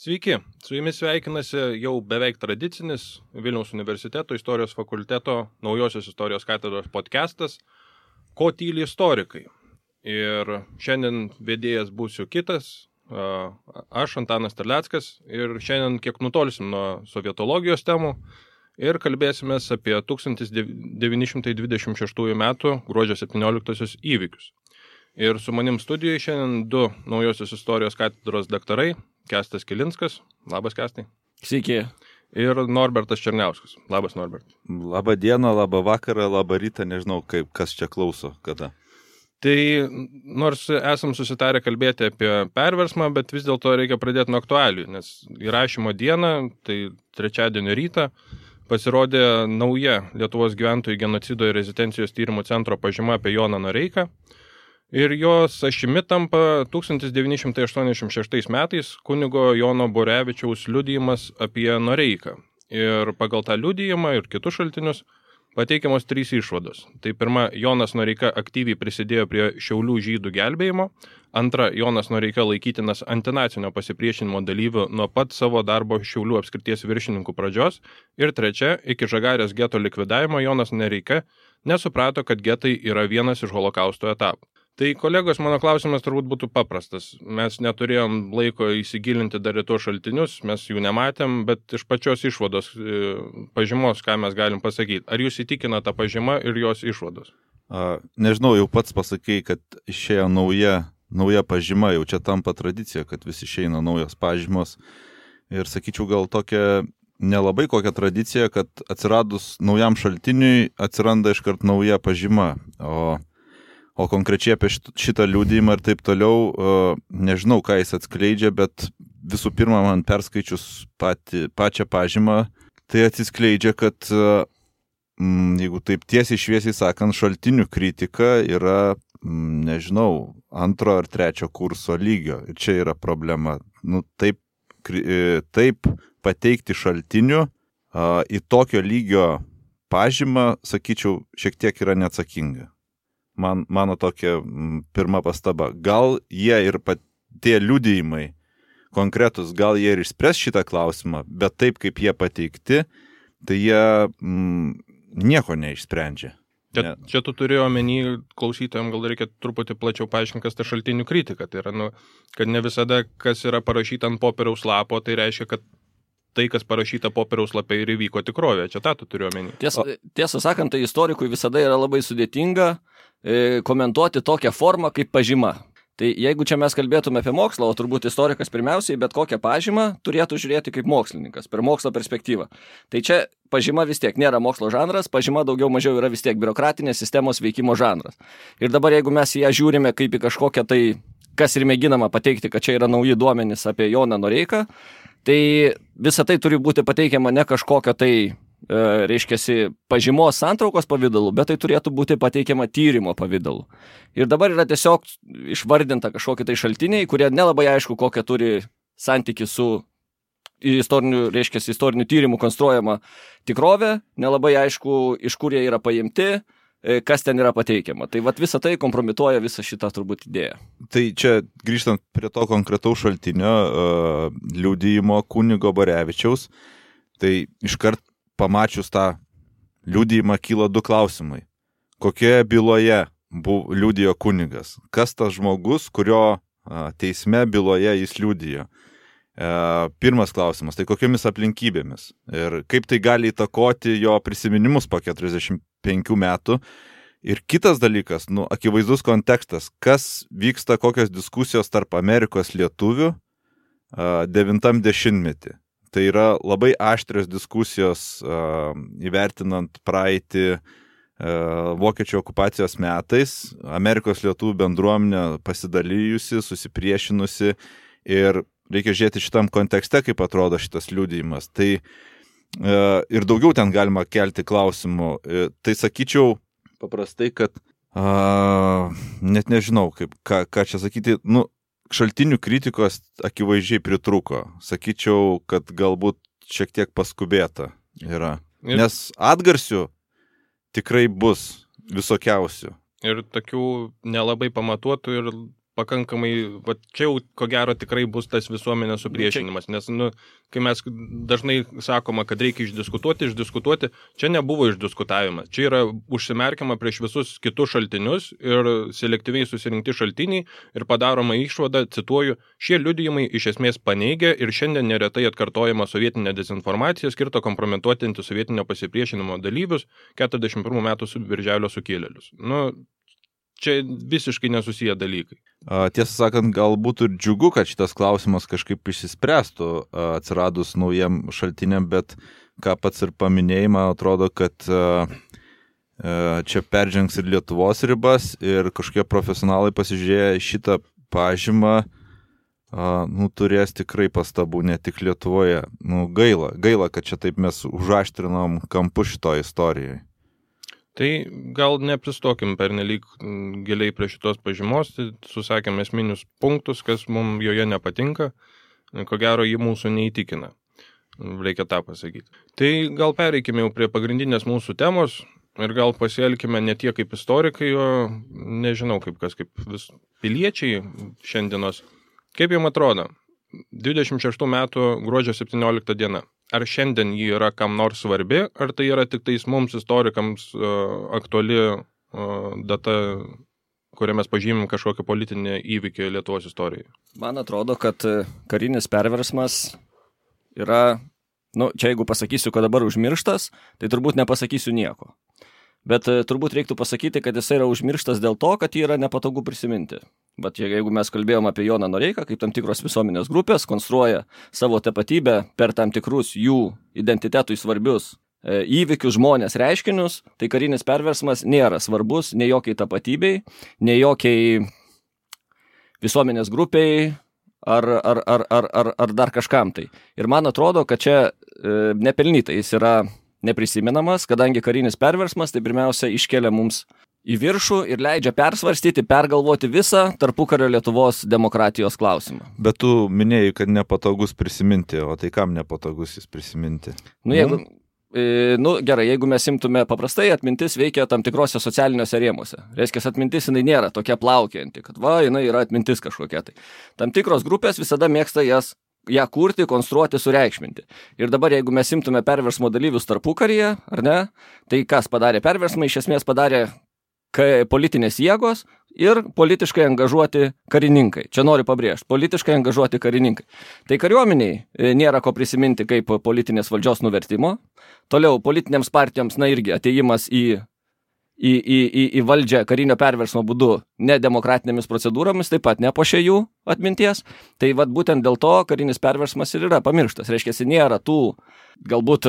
Sveiki, su jumis sveikinasi jau beveik tradicinis Vilniaus universiteto istorijos fakulteto naujosios istorijos katedros podcastas Ko tyli istorikai. Ir šiandien vedėjas būsiu kitas, aš Antanas Terleckas, ir šiandien kiek nutolsim nuo sovietologijos temų ir kalbėsimės apie 1926 metų gruodžio 17 įvykius. Ir su manim studijoje šiandien du naujosios istorijos katedros daktarai, Kęstas Kilinskas. Labas, Kęstai. Sveiki. Ir Norbertas Černiauskas. Labas, Norbert. Labą dieną, labą vakarą, labą rytą, nežinau, kas čia klauso, kada. Tai nors esam susitarę kalbėti apie perversmą, bet vis dėlto reikia pradėti nuo aktualijų, nes įrašymo dieną, tai trečiadienio rytą, pasirodė nauja Lietuvos gyventojų genocido ir rezistencijos tyrimų centro pažyma apie Joną Noreiką. Ir jos ašimi tampa 1986 metais kunigo Jono Borevičiaus liudijimas apie Noreiką. Ir pagal tą liudijimą ir kitus šaltinius pateikiamos 3 išvados. Tai pirma, Jonas Noreika aktyviai prisidėjo prie Šiaulių žydų gelbėjimo. Antra, Jonas Noreika laikytinas antinacinio pasipriešinimo dalyvių nuo pat savo darbo Šiaulių apskrities viršininkų pradžios. Ir trečia, iki Žagarės geto likvidavimo Jonas Noreika nesuprato, kad getai yra vienas iš holokausto etapų. Tai, kolegos, mano klausimas turbūt būtų paprastas. Mes neturėjom laiko įsigilinti dar į tuos šaltinius, mes jų nematėm, bet iš pačios išvados pažymos, ką mes galim pasakyti. Ar jūs įtikina tą pažymą ir jos išvados? Nežinau, jau pats pasakei, kad išėjo nauja pažyma, jau čia tampa tradicija, kad vis išeina naujos pažymos. Ir sakyčiau, gal tokia nelabai kokia tradicija, kad atsiradus naujam šaltiniui atsiranda iškart nauja pažyma. O konkrečiai apie šitą liudijimą ir taip toliau, nežinau, ką jis atskleidžia, bet visų pirma, man perskaičius pačią pažymą, tai atsiskleidžia, kad, jeigu taip tiesiai šviesiai sakant, šaltinių kritika yra, nežinau, 2 ar 3 kurso lygio. Ir čia yra problema. Taip pateikti šaltinių į tokio lygio pažymą, sakyčiau, šiek tiek yra neatsakinga. Mano tokia pirma pastaba. Gal jie ir tie liudijimai konkretus, gal jie ir išspręs šitą klausimą, bet taip kaip jie pateikti, tai jie nieko neišsprendžia. Čia tu turėjo omeny, klausytojams gal reikia truputį plačiau paaiškinti, kas ta šaltinių kritika. Tai yra, kad ne visada, kas yra parašyta ant popieriaus lapo, tai reiškia, kad tai, kas parašyta popieriaus lapė ir įvyko tikrovė. Čia tą tu turėjo omeny. Tiesą sakant, tai istorikui visada yra labai sudėtinga komentuoti tokią formą kaip pažyma. Tai jeigu čia mes kalbėtume apie mokslą, o turbūt istorikas pirmiausiai bet kokią pažymą turėtų žiūrėti kaip mokslininkas, per mokslo perspektyvą. Tai čia pažyma vis tiek nėra mokslo žanras, pažyma daugiau mažiau yra vis tiek biurokratinės sistemos veikimo žanras. Ir dabar jeigu mes ją žiūrime kaip į kažkokią tai, kas ir mėginama pateikti, kad čia yra nauji duomenys apie Joną Noreiką, tai visa tai turi būti pateikiama ne kažkokio tai reiškiasi pažymos santraukos pavidalu, bet tai turėtų būti pateikiama tyrimo pavidalu. Ir dabar yra tiesiog išvardinta kažkokie tai šaltiniai, kurie nelabai aišku, kokią turi santyki su istorinių tyrimų konstruojama tikrovė, nelabai aišku, iš kur jie yra paimti, kas ten yra pateikiama. Tai visa tai kompromituoja visą šitą turbūt idėją. Tai čia grįžtant prie to konkretaus šaltinio liudijimo kunigo Borevičiaus, tai iškart pamačius tą liudijimą kyla 2 klausimai. Kokioje byloje liudijo kunigas? Kas tas žmogus, kurio teisme byloje jis liudijo? Pirmas klausimas, tai kokiomis aplinkybėmis? Ir kaip tai gali įtakoti jo prisiminimus po 45 metų? Ir kitas dalykas, akivaizdus kontekstas, kas vyksta, kokios diskusijos tarp Amerikos lietuvių 90-metį. Tai yra labai aštrios diskusijos įvertinant praeitį vokiečių okupacijos metais, Amerikos lietuvių bendruomenė pasidalijusi, susipriešinusi ir reikia žiūrėti šitam kontekste, kaip atrodo šitas liudijimas. Tai ir daugiau ten galima kelti klausimų. Tai sakyčiau paprastai, kad net nežinau, ką čia sakyti, šaltinių kritikos akivaizdžiai pritrūko. Sakyčiau, kad galbūt šiek tiek paskubėta yra. Nes atgarsių tikrai bus visokiausių. Ir tokių nelabai pamatuotų ir pakankamai, va, čia jau ko gero tikrai bus tas visuomenės supriešinimas, nes, kai mes dažnai sakoma, kad reikia išdiskutuoti, čia nebuvo išdiskutavimas, čia yra užsimerkiama prieš visus kitus šaltinius ir selektyviai susirinkti šaltiniai ir padaroma išvada, cituoju, šie liudijimai iš esmės paneigia ir šiandien neretai atkartojama sovietinė dezinformacija skirta kompromituoti antisovietinio pasipriešinimo dalyvius 41 metų birželio sukilėlius. Čia visiškai nesusiję dalykai. Tiesą sakant, galbūt ir džiugu, kad šitas klausimas kažkaip išsispręstų atsiradus naujiem šaltiniam, bet ką pats ir paminėjai, man atrodo, kad čia peržengs ir Lietuvos ribas ir kažkokie profesionalai pasižiūrėję šitą pažymą, turės tikrai pastabų, ne tik Lietuvoje. Gaila, kad čia taip mes užaštrinom kampu šito istorijai. Tai gal nepristokim pernelyg giliai prie šitos pažymos, tai susakėm esminius punktus, kas mums joje nepatinka, ko gero jį mūsų neįtikina. Reikia tą pasakyti. Tai gal pereikime jau prie pagrindinės mūsų temos ir gal pasielkime ne tiek kaip istorikai, o nežinau kaip piliečiai šiandienos. Kaip jums atrodo, 26 metų gruodžio 17 diena. Ar šiandien jį yra kam nors svarbi, ar tai yra tik tais mums istorikams aktuali data, kurią mes pažymim kažkokią politinę įvykį Lietuvos istorijoje? Man atrodo, kad karinis perversmas yra, čia jeigu pasakysiu, kad dabar užmirštas, tai turbūt nepasakysiu nieko. Bet turbūt reiktų pasakyti, kad jis yra užmirštas dėl to, kad jį yra nepatogu prisiminti. Bet jeigu mes kalbėjom apie Joną Noreiką, kaip tam tikros visuomenės grupės konstruoja savo tapatybę per tam tikrus jų identitetui svarbius įvykius, žmonės, reiškinius, tai karinis perversmas nėra svarbus nei jokiai tapatybei, nei jokiai visuomenės grupiai ar dar kažkam tai. Ir man atrodo, kad čia nepelnytai jis yra neprisimenamas, kadangi karinis perversmas tai pirmiausia iškelia mums į viršų ir leidžia persvarstyti, pergalvoti visą tarpukario Lietuvos demokratijos klausimą. Bet tu minėjai, kad nepatogus prisiminti, o tai kam nepatogus jis prisiminti? Gerai, jeigu mes imtume paprastai, atmintis veikia tam tikrose socialiniuose rėmuose. Reiškia, atmintis jinai nėra tokia plaukianti, kad jinai yra atmintis kažkokia tai. Tam tikros grupės visada mėgsta ją kurti, konstruoti, sureikšminti. Ir dabar, jeigu mes imtume perversmo dalyvius tarpukaryje, ar ne, tai kas padarė perversmą, iš esmės padarė politinės jėgos ir politiškai angažuoti karininkai. Čia noriu pabrėžti, politiškai angažuoti karininkai. Tai kariuomeniai nėra ko prisiminti kaip politinės valdžios nuvertimo. Toliau politinėms partijoms, irgi atėjimas į valdžią karinio perversmo būdu nedemokratinėmis procedūromis, taip pat nepošė jų atminties. Tai būtent dėl to karinis perversmas ir yra pamirštas. Reiškia, nėra tų galbūt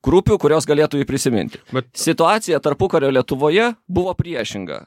grupių, kurios galėtų jį prisiminti. Situacija tarpukario Lietuvoje buvo priešinga.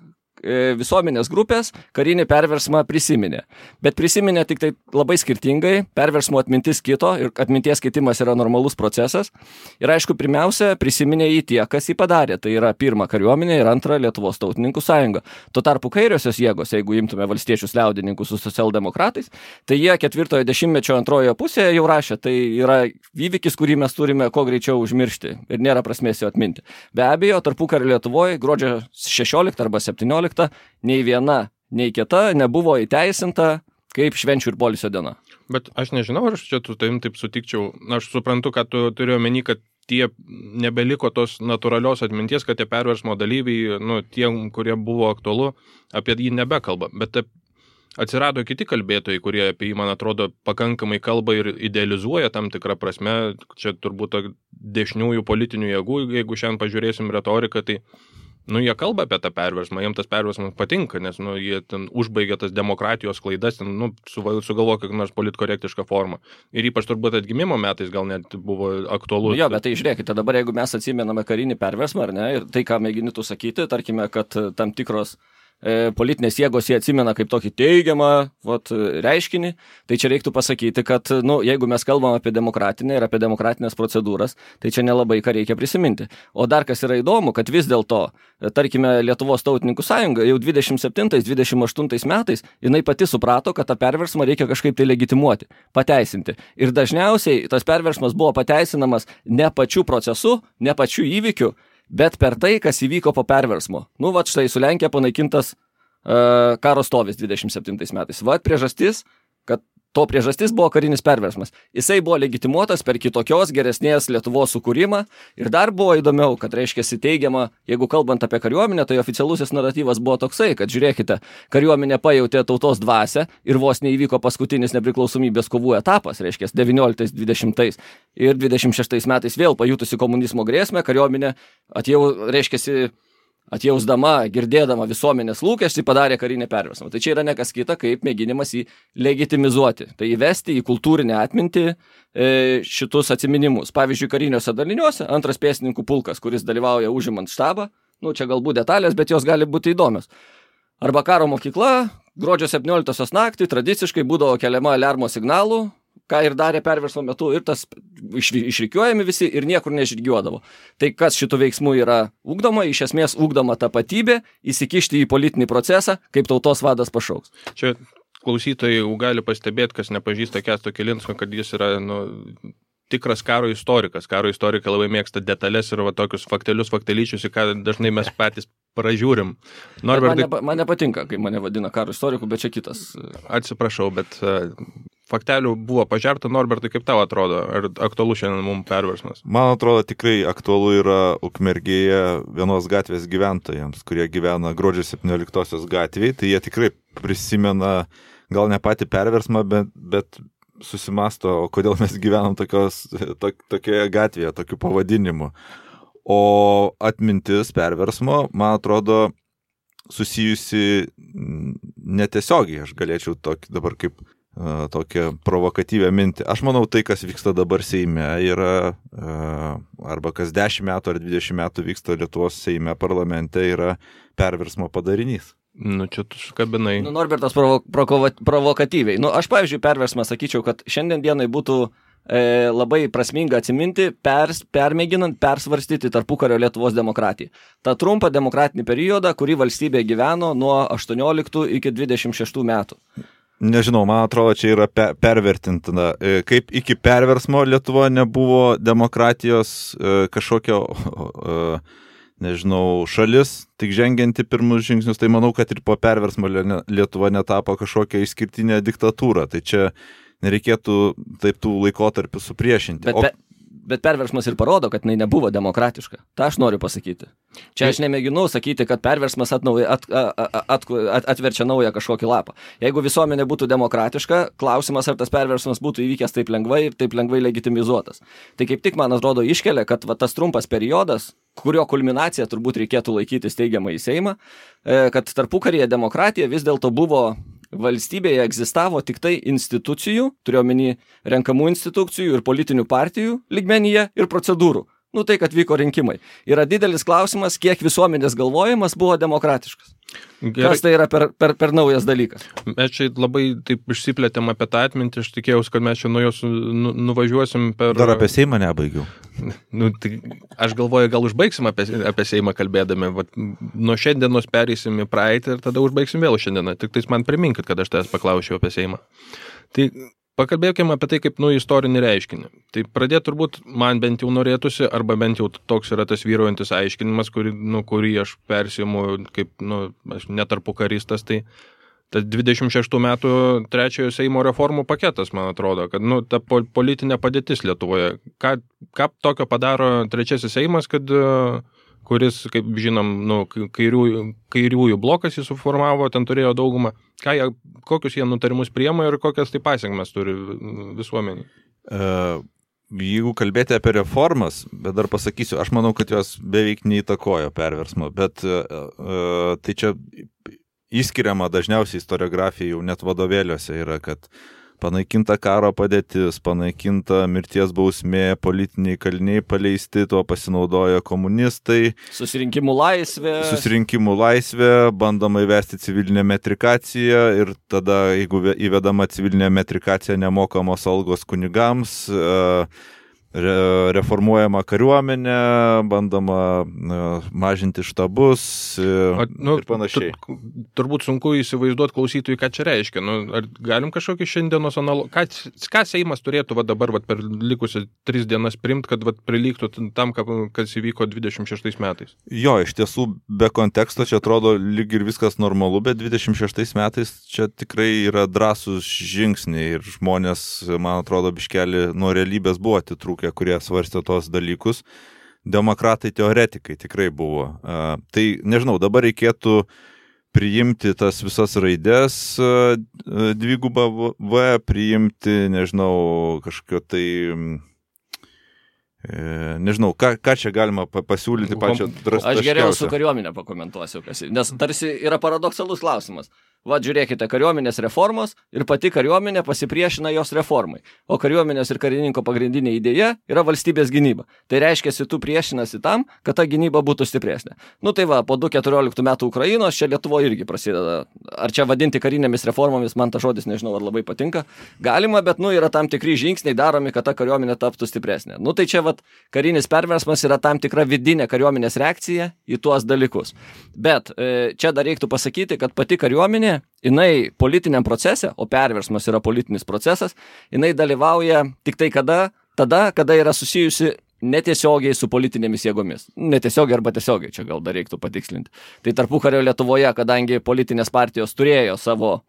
Visuomenės grupės karinį perversmą prisiminė. Bet prisiminė tik tai labai skirtingai, perversmo atmintis kito ir atminties keitimas yra normalus procesas. Ir aišku, pirmiausia, prisiminė jį tie, kas jį padarė. Tai yra pirma kariuomenė ir antra Lietuvos tautininkų sąjunga. Tuo tarpu kairiosios jėgos, jeigu imtume valstiečius liaudininkus su socialdemokratais, tai jie 4-ojo dešimtmečio antrojoje pusėje jau rašė, tai yra įvykis, kurį mes turime kuo greičiau užmiršti ir nėra prasmės jo atminti. Be abejo, tarpukario Lietuvoje gruodžio 16 arba 17 nei viena, nei kita nebuvo įteisinta kaip švenčių ir poilsio diena. Bet aš nežinau, ar aš čia taip sutikčiau. Aš suprantu, kad tu turiu omeny, kad tie nebeliko tos natūralios atminties, kad tie perversmo dalyviai, tie, kurie buvo aktualu, apie jį nebekalba. Bet atsirado kiti kalbėtojai, kurie apie jį, man atrodo, pakankamai kalba ir idealizuoja tam tikrą prasme. Čia turbūt dešiniųjų politinių jėgų, jeigu šiandien pažiūrėsim retoriką, tai jie kalba apie tą perversmą, jiems tas perversmas patinka, nes jie ten užbaigia tas demokratijos klaidas, sugalvoja kokią nors politkorektišką formą. Ir ypač turbūt atgimimo metais gal net buvo aktualus. Bet tai žiūrėkite, dabar jeigu mes atsimename karinį perversmą, ar ne, ir tai, ką mėginitų sakyti, tarkime, kad tam tikros politinės jėgos jie atsimena kaip tokį teigiamą reiškinį, tai čia reiktų pasakyti, kad jeigu mes kalbam apie demokratinę ir apie demokratinės procedūras, tai čia nelabai ką reikia prisiminti. O dar kas yra įdomu, kad vis dėlto, tarkime, Lietuvos tautininkų sąjunga jau 27-28 metais jinai pati suprato, kad tą perversmą reikia kažkaip tai legitimuoti, pateisinti. Ir dažniausiai tas perversmas buvo pateisinamas ne pačiu procesu, ne pačiu įvykiu, bet per tai, kas įvyko po perversmo. Štai su Lenkija panaikintas karo stovis 27 metais. Va, priežastis, kad to priežastis buvo karinis perversmas. Jisai buvo legitimuotas per kitokios geresnės Lietuvos sukūrimą ir dar buvo įdomiau, kad reiškiasi teigiama, jeigu kalbant apie kariuomenę, tai oficialusis naratyvas buvo toksai, kad žiūrėkite, kariuomenė pajautė tautos dvasią ir vos neįvyko paskutinis nepriklausomybės kovų etapas, reiškia 19, 20 ir 26 metais vėl pajutusi komunizmo grėsmę, kariuomenė atjausdama, girdėdama visuomenės lūkestį, padarė karinį perversmą. Tai čia yra nekas kita, kaip mėginimas jį legitimizuoti. Tai įvesti į kultūrinę atmintį šitus atsiminimus. Pavyzdžiui, kariniuose daliniuose antras pėstininkų pulkas, kuris dalyvauja užimant štabą, čia galbūt detalės, bet jos gali būti įdomios. Arba karo mokykla, gruodžio 17 naktį tradiciškai būdavo keliama aliarmo signalų, ką ir darė perversmo metu, ir tas išrikiuojami visi ir niekur nežygiuodavo. Tai kas šitų veiksmų yra ugdoma, iš esmės ugdoma tapatybė, įsikišti į politinį procesą, kaip tautos vadas pašauks. Čia klausytojai gali pastebėti, kas nepažįsta Kęsto Kilinsko, kad jis yra tikras karo istorikas. Karo istorikai labai mėgsta detalės ir tokius faktelyčius, į ką dažnai mes patys pražiūrim. Man nepatinka, kai mane vadina karo istoriku, bet čia kitas. Atsiprašau, bet faktelių buvo pažerta. Norbertai, kaip tau atrodo? Ar aktualu šiandien mums perversmas? Man atrodo, tikrai aktualu yra Ukmergėje vienos gatvės gyventojams, kurie gyvena gruodžio 17 gatvėje. Tai jie tikrai prisimena gal ne patį perversmą, bet susimasto, o kodėl mes gyvenam tokioje gatvėje, tokiu pavadinimu. O atmintis perversmo, man atrodo, susijusi netiesiogiai, aš galėčiau dabar kaip tokią provokatyvę mintį. Aš manau, tai, kas vyksta dabar Seime, yra, arba kas 10 metų ar 20 metų vyksta Lietuvos Seime parlamente, yra perversmo padarinys. Čia tu sukabinai. Norbertas provokatyviai. Aš, pavyzdžiui, perversmą sakyčiau, kad šiandien dienai būtų labai prasminga atsiminti, permėginant persvarstyti tarpukario Lietuvos demokratiją. Ta trumpą demokratinį periodą, kurį valstybė gyveno nuo 18 iki 26 metų. Nežinau, man atrodo, čia yra pervertintina. Kaip iki perversmo Lietuva nebuvo demokratijos kažkokio, šalis, tik žengianti pirmus žingsnius, tai manau, kad ir po perversmo Lietuva netapo kažkokią išskirtinę diktatūrą. Tai čia nereikėtų taip tų laikotarpių supriešinti. Bet perversmas ir parodo, kad jinai nebuvo demokratiška. Ta aš noriu pasakyti. Čia aš nemėginu sakyti, kad perversmas atverčia naują kažkokį lapą. Jeigu visuomenė būtų demokratiška, klausimas, ar tas perversmas būtų įvykęs taip lengvai ir taip lengvai legitimizuotas. Tai kaip tik, man atrodo, iškelia, kad tas trumpas periodas, kurio kulminaciją turbūt reikėtų laikytis teigiamai į Seimą, kad tarpukaryje demokratija vis dėlto buvo valstybėje egzistavo tik tai institucijų, turiuomenį renkamų institucijų ir politinių partijų lygmenyje ir procedūrų. Tai, kad vyko rinkimai. Yra didelis klausimas, kiek visuomenės galvojimas buvo demokratiškas. Gerai. Kas tai yra per naujas dalykas? Mes čia labai taip išsiplėtėm apie tą atmintį, aš tikėjausi, kad mes čia nuo jos nuvažiuosim per... Dar apie Seimą nebaigiau. Tai aš galvoju, gal užbaigsim apie Seimą kalbėdami. Nuo šiandienos pereisim į praeitį ir tada užbaigsim vėl šiandieną. Tik tais man priminkit, kad aš tavęs paklausiau apie Seimą. Tai pakalbėkime apie tai kaip istorinį reiškinį. Tai pradėti turbūt man bent jau norėtųsi, arba bent jau toks yra tas vyraujantis aiškinimas, kurį aš persiimu kaip aš netarpukaristas, tai tas 26 metų trečiojo Seimo reformų paketas, man atrodo, kad ta politinė padėtis Lietuvoje. Ką tokio padaro trečiasis Seimas, kuris, kaip žinom, kairiųjų blokas jį suformavo, ten turėjo daugumą. Kokius jie nutarimus priema ir kokias tai pasiekmes turi visuomenį? Jeigu kalbėti apie reformas, bet dar pasakysiu, aš manau, kad jos beveik neįtakojo perversmo, bet tai čia įskiriama dažniausiai istoriografija jau net vadovėliuose yra, kad panaikinta karo padėtis, panaikinta mirties bausmė, politiniai kaliniai paleisti, tuo pasinaudojo komunistai. Susirinkimų laisvė, bandoma įvesti civilinę metrikaciją ir tada, jeigu įvedama civilinė metrikacija, nemokamos algos kunigams, reformuojama kariuomenė, bandoma mažinti štabus ir panašiai. Turbūt sunku įsivaizduoti klausytojui, ką čia reiškia. Ar galim kažkokį šiandienos ką Seimas turėtų dabar per likusią 3 dienas priimti, kad prilygtų tam, kas įvyko 26 metais? Jo, iš tiesų, be konteksto čia atrodo lyg ir viskas normalu, bet 26 metais čia tikrai yra drąsūs žingsniai ir žmonės, man atrodo, biškelį nuo realybės buvo atitrūkę, kurie svarstė tos dalykus. Demokratai teoretikai tikrai buvo. Tai, nežinau, dabar reikėtų priimti tas visas raidės dvigubą V, priimti, nežinau, kažkokio tai, nežinau, ką čia galima pasiūlyti pačią drastiškiausią. Aš geriau su kariuomenė pakomentuosiu, nes tarsi yra paradoksalus klausimas. Va, žiūrėkite, kariuomenės reformos ir pati kariuomenė pasipriešina jos reformai. O kariuomenės ir karininko pagrindinė idėja yra valstybės gynyba. Tai reiškia, tu priešinasi tam, kad ta gynyba būtų stipresnė. Tai va, po 2014 metų Ukrainos čia Lietuvoje irgi prasideda. Ar čia vadinti karinėmis reformomis, man ta žodis nežinau, ar labai patinka. Galima, bet yra tam tikri žingsniai daromi, kad ta kariuomenė taptų stipresnė. Tai čia va, karinis perversmas yra tam tikra vidinė kariuomenės reakcija į tuos dalykus. Bet čia dar reiktų pasakyti, kad pati kariuomenė jinai politiniam procese, o perversmas yra politinis procesas, jinai dalyvauja tik tai tada, kada yra susijusi netiesiogiai su politinėmis jėgomis. Netiesiogiai arba tiesiogiai, čia gal dar reiktų patikslinti. Tai tarpukario Lietuvoje, kadangi politinės partijos turėjo savo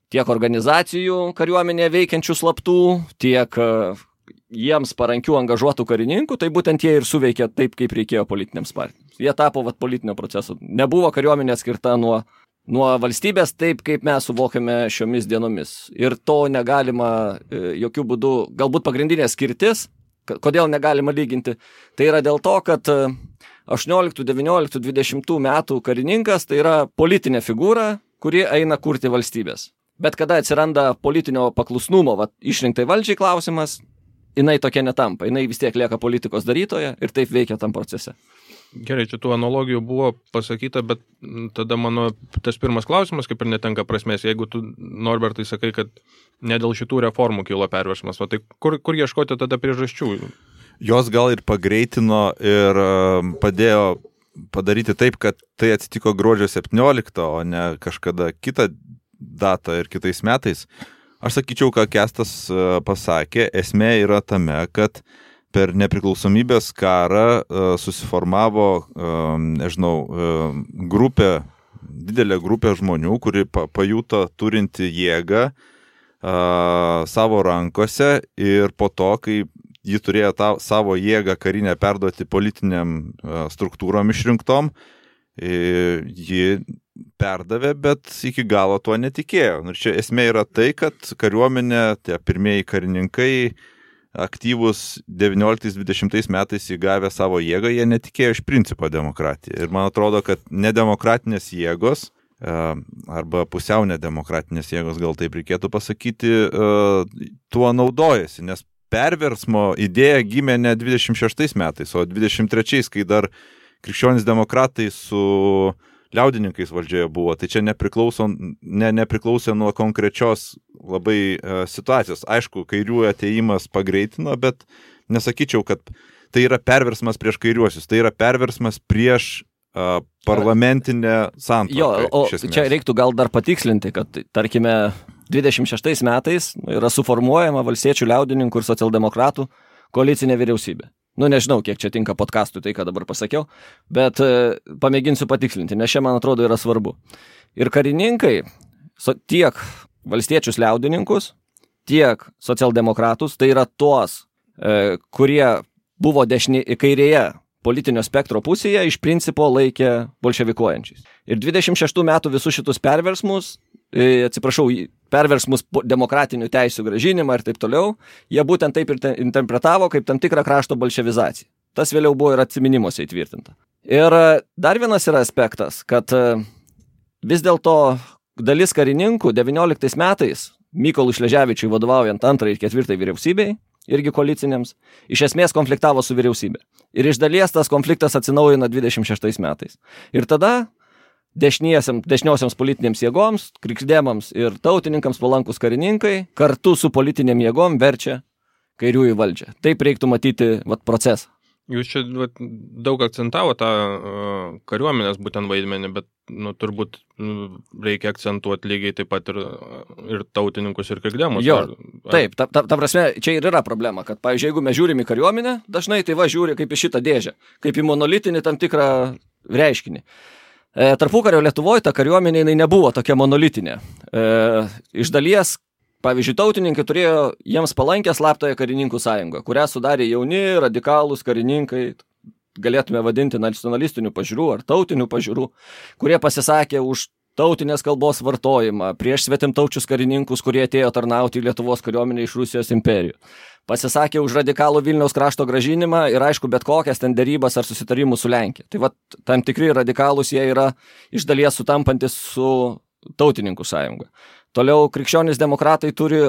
tiek organizacijų kariuomenėje veikiančių slaptų, tiek jiems parankių angažuotų karininkų, tai būtent jie ir suveikė taip, kaip reikėjo politinėms partijoms. Jie tapo politinio proceso. Nebuvo kariuomenė skirta nuo valstybės taip, kaip mes suvokiame šiomis dienomis. Ir to negalima jokių būdų, galbūt pagrindinė skirtis, kodėl negalima lyginti, tai yra dėl to, kad 18, 19, 20 metų karininkas tai yra politinė figūra, kuri eina kurti valstybės. Bet kada atsiranda politinio paklusnumo išrinktai valdžiai klausimas, jinai tokia netampa, jinai vis tiek lieka politikos darytoja ir taip veikia tam procese. Gerai, čia tų analogijų buvo pasakyta, bet tada mano tas pirmas klausimas kaip ir netenka prasmės. Jeigu tu, Norbertai, sakai, kad ne dėl šitų reformų kilo perversmas, tai kur ieškoti tada priežasčių? Jos gal ir pagreitino ir padėjo padaryti taip, kad tai atsitiko gruodžio 17, o ne kažkada kitą datą ir kitais metais. Aš sakyčiau, ką Kęstas pasakė, esmė yra tame, kad per nepriklausomybės karą susiformavo, didelė grupė žmonių, kuri pajuto turinti jėgą savo rankose ir po to, kai ji turėjo savo jėgą karinę perduoti politiniam struktūrom išrinktom, ji perdavė, bet iki galo tuo netikėjo. Ir čia esmė yra tai, kad kariuomenė, tie pirmieji karininkai, aktyvus 19-20 metais įgavę savo jėgą, jie netikėjo iš principo demokratiją. Ir man atrodo, kad nedemokratinės jėgos, arba pusiau nedemokratinės jėgos, gal taip reikėtų pasakyti, tuo naudojasi, nes perversmo idėja gimė ne 26 metais, o 23, kai dar krikščionys demokratai su liaudininkais valdžioje buvo. Tai čia nepriklausė nuo konkrečios labai situacijos. Aišku, kairiųjų atėjimas pagreitino, bet nesakyčiau, kad tai yra perversmas prieš kairiuosius. Tai yra perversmas prieš parlamentinę santvarką. Jo, o čia reiktų gal dar patikslinti, kad, tarkime, 26 metais yra suformuojama valstiečių, liaudininkų ir socialdemokratų koalicinė vyriausybė. Nežinau, kiek čia tinka podcastui tai, ką dabar pasakiau, bet pamėginsiu patikslinti, nes čia, man atrodo, yra svarbu. Ir karininkai, tiek valstiečius liaudininkus, tiek socialdemokratus, tai yra tuos, kurie buvo kairėje politinio spektro pusėje, iš principo laikė bolševikuojančiais. Ir 26 metų visus šitus perversmus, perversmus demokratinių teisių grąžinimą ir taip toliau, jie būtent taip ir interpretavo kaip tam tikrą krašto bolševizaciją. Tas vėliau buvo ir atsiminimuose įtvirtinta. Ir dar vienas yra aspektas, kad vis dėlto dalis karininkų 19 metais Mykolui Šleževičiui vadovaujant 2 ir 4 vyriausybei, irgi koalicinėms, iš esmės konfliktavo su vyriausybė. Ir iš dalies tas konfliktas atsinaujino 26 metais. Ir tada dešiniosiams politinėms jėgoms, krikšdemams ir tautininkams palankus karininkai kartu su politinėm jėgom verčia kairiųjų valdžią. Taip reiktų matyti procesą. Jūs čia daug akcentavo tą kariuomenės būtent vaidmenį, bet turbūt reikia akcentuoti lygiai taip pat ir tautininkus ir krikdemus. Jo, taip, ta prasme, čia ir yra problema, kad, pavyzdžiui, jeigu mes žiūrim į kariuomenę, dažnai tai žiūri kaip į šitą dėžę, kaip į monolitinį tam tikrą reiškinį. Tarpukario Lietuvoje ta kariuomenė jinai nebuvo tokia monolitinė. Iš dalies, pavyzdžiui, tautininkai turėjo jiems palankę slaptąją karininkų sąjungą, kurią sudarė jauni, radikalūs karininkai, galėtume vadinti nacionalistinių pažiūrų ar tautinių pažiūrų, kurie pasisakė už tautinės kalbos vartojimą, prieš svetimtaučius karininkus, kurie atėjo tarnauti į Lietuvos kariuomenę iš Rusijos imperijų. Pasisakė už radikalų Vilniaus krašto grąžinimą ir, aišku, bet kokias ten derybas ar susitarimus su Lenkija. Tai tam tikri radikalūs jie yra iš dalies sutampantis su tautininkų sąjunga. Toliau krikščionys demokratai turi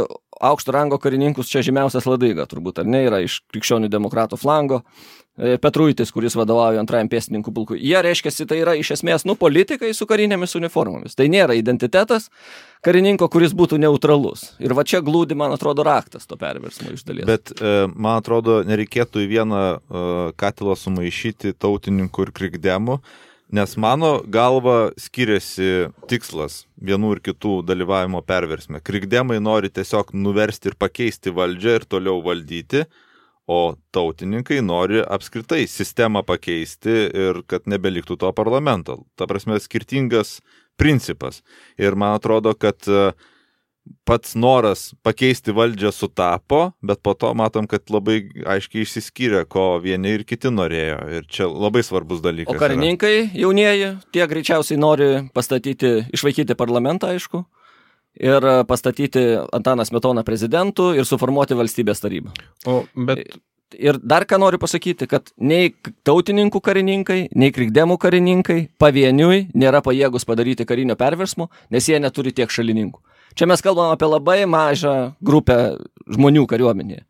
aukšto rango karininkus, čia žymiausias Ladaiga, turbūt, ar ne, yra iš krikščionių demokratų flango, Petruitis, kuris vadovauja 2 pėstininkų pulkui. Jie reiškiasi, tai yra iš esmės, politikai su karinėmis uniformomis. Tai nėra identitetas karininko, kuris būtų neutralus. Ir čia glūdi, man atrodo, raktas to perversmo iš dalies. Bet, man atrodo, nereikėtų į vieną katilą sumaišyti tautininkų ir krikdemų, nes mano galva skiriasi tikslas vienų ir kitų dalyvavimo perversme. Krikdemai nori tiesiog nuversti ir pakeisti valdžią ir toliau valdyti, o tautininkai nori apskritai sistemą pakeisti ir kad nebeliktų to parlamento. Ta prasme, skirtingas principas. Ir man atrodo, kad pats noras pakeisti valdžią sutapo, bet po to matom, kad labai aiškiai išsiskyrė, ko vieni ir kiti norėjo. Ir čia labai svarbus dalykas. O karininkai jaunieji, tie greičiausiai nori išvaikyti parlamentą, aišku, ir pastatyti Antaną Smetoną prezidentu ir suformuoti valstybės tarybą. Ir dar ką noriu pasakyti, kad nei tautininkų karininkai, nei krikdemų karininkai pavieniui nėra pajėgus padaryti karinio perversmo, nes jie neturi tiek šalininkų. Čia mes kalbam apie labai mažą grupę žmonių kariuomenėje.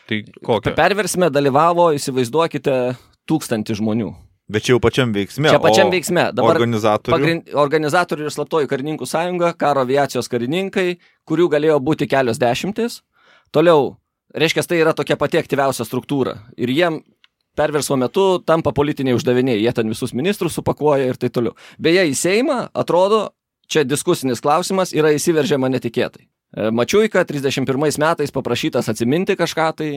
Tai kokią? Perversme dalyvavo, įsivaizduokite, 1000 žmonių. Bet čia jau pačiam veiksme. Čia pačiam veiksme. Dabar organizatorių ir slaptoji karininkų sąjunga, karo aviacijos karininkai, kurių galėjo būti kelios dešimtis. Toliau, reiškia, tai yra tokia pati aktyviausia struktūra. Ir jiem perversmo metu tampa politiniai uždaviniai. Jie ten visus ministrus supakuoja ir taip toliau. Beje, į Seimą, atrodo, čia diskusinis klausimas, yra įsiveržiama netikėtai. Mačiuika 31 metais paprašytas atsiminti kažką tai,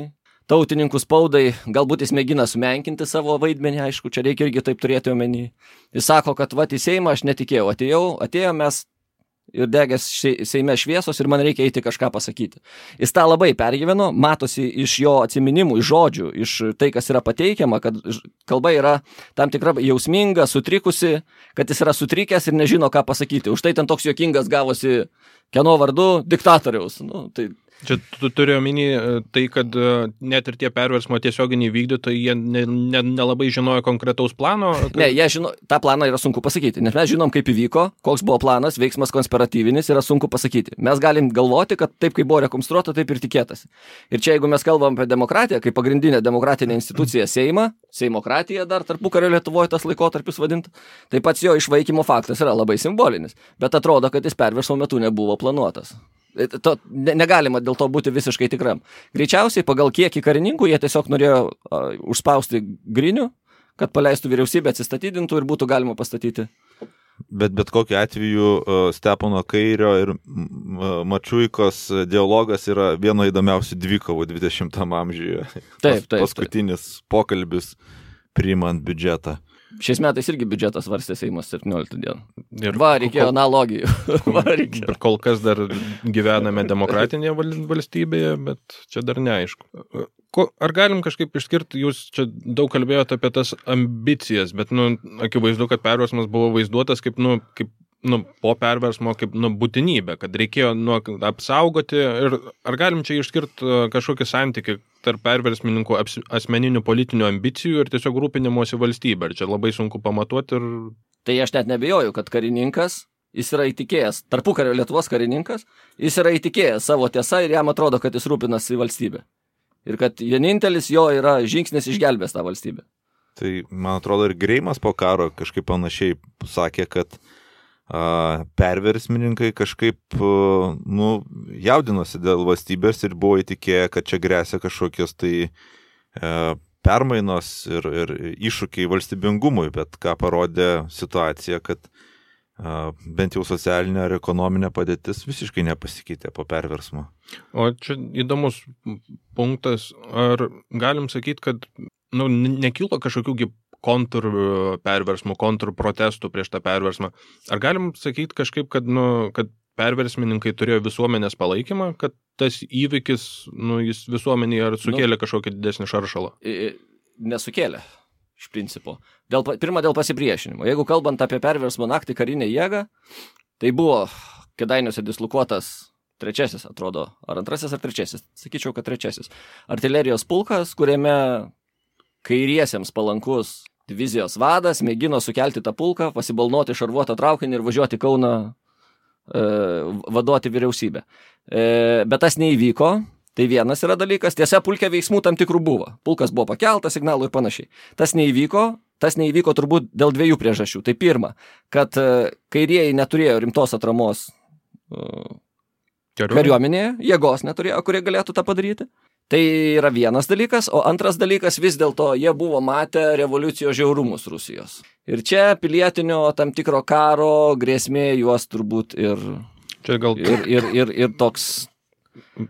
tautininkų spaudai, galbūt jis mėgina sumenkinti savo vaidmenį, aišku, čia reikia irgi taip turėti omeny. Jis sako, kad į Seimą aš netikėjau, atėjom mes ir degės Seime šviesos ir man reikia eiti kažką pasakyti. Jis tą labai pergyveno, matosi iš jo atsiminimų, iš žodžių, iš tai, kas yra pateikiama, kad kalba yra tam tikra jausminga, sutrikusi, kad jis yra sutrikęs ir nežino, ką pasakyti. Už tai ten toks juokingas gavosi kieno vardu diktatoriaus. Čia tu turi omeny tai, kad net ir tie perversmo tiesioginiai vykdytojai, jie nelabai žinojo konkretaus plano? Ne, jie žino, tą planą yra sunku pasakyti, nes mes žinom, kaip įvyko, koks buvo planas, veiksmas konspiratyvinis, yra sunku pasakyti. Mes galim galvoti, kad taip, kaip buvo rekonstruota, taip ir tikėtasi. Ir čia, jeigu mes kalbam apie demokratiją, kaip pagrindinę demokratinę instituciją Seimą, Seimokratija dar tarpukario Lietuvoje tas laikotarpis vadinta, tai pats jo išvaikymo faktas yra labai simbolinis, bet atrodo, kad jis perversmo metu nebuvo planuotas. Negalima dėl to būti visiškai tikram. Greičiausiai pagal kiekį karininkų jie tiesiog norėjo užspausti grinių, kad paleistų vyriausybę, atsistatydintų ir būtų galima pastatyti. Bet kokiu atveju Stepono Kairio ir Mačiuikos dialogas yra vieno įdomiausių dvikovų 20 amžiuje. Taip. Paskutinis pokalbis priimant biudžetą. Šiais metais irgi biudžetas varstė Seimas 17 dieną. Reikėjo analogijų. Ir kol kas dar gyvename demokratinėje valstybėje, bet čia dar neaišku. Ar galim kažkaip išskirti, jūs čia daug kalbėjote apie tas ambicijas, bet akivaizdu, kad perversmas buvo vaizduotas kaip po perversmo kaip būtinybė, kad reikėjo apsaugoti. Ir ar galim čia išskirti kažkokį santykį tarp perversmininkų asmeninių politinių ambicijų ir tiesiog rūpinimosi valstybė? Ir čia labai sunku pamatuoti. Tai aš net nebejoju, kad karininkas, jis yra įtikėjęs, tarpukario Lietuvos karininkas, jis yra įtikėjęs savo tiesą ir jam atrodo, kad jis rūpinasi valstybė. Ir kad vienintelis jo yra žingsnis išgelbės tą valstybę. Tai, man atrodo, ir Greimas po karo kažkaip panašiai sakė, kad perversmininkai kažkaip, jaudinosi dėl valstybės ir buvo įtikėję, kad čia grėsia kažkokios tai permainos ir iššūkiai valstybingumui, bet ką parodė situacija, kad bent jau socialinė ir ekonominė padėtis visiškai nepasikeitė po perversmo. O čia įdomus punktas, ar galim sakyti, kad nekilo kažkokių kontrperversmų, kontrprotestų prieš tą perversmą. Ar galim sakyti kažkaip, kad perversmininkai turėjo visuomenės palaikymą, kad tas įvykis, jis visuomenėje ar sukėlė kažkokį didesnį šaršalą? Nesukėlė, iš principo. Pirma, dėl pasipriešinimo. Jeigu kalbant apie perversmo naktį karinę jėgą, tai buvo Kėdainiuose dislokuotas trečiasis, atrodo, ar antrasis, ar trečiasis, sakyčiau, kad trečiasis, artilerijos pulkas, kuriame kairiesiems palankus divizijos vadas mėgino sukelti tą pulką, pasibalnoti šarvuotą traukinį ir važiuoti Kauną vaduoti vyriausybę. Bet tas neįvyko, tai vienas yra dalykas, tiesa, pulke veiksmų tam tikrų buvo. Pulkas buvo pakeltas, signalų ir panašiai. Tas neįvyko turbūt dėl dviejų priežasčių. Tai pirma, kad kairieji neturėjo rimtos atramos kariuomenėje, jėgos neturėjo, kurie galėtų tą padaryti. Tai yra vienas dalykas, o antras dalykas vis dėlto jie buvo matę revoliucijos žiaurumus Rusijos. Ir čia pilietinio tam tikro karo grėsmė juos turbūt ir toks.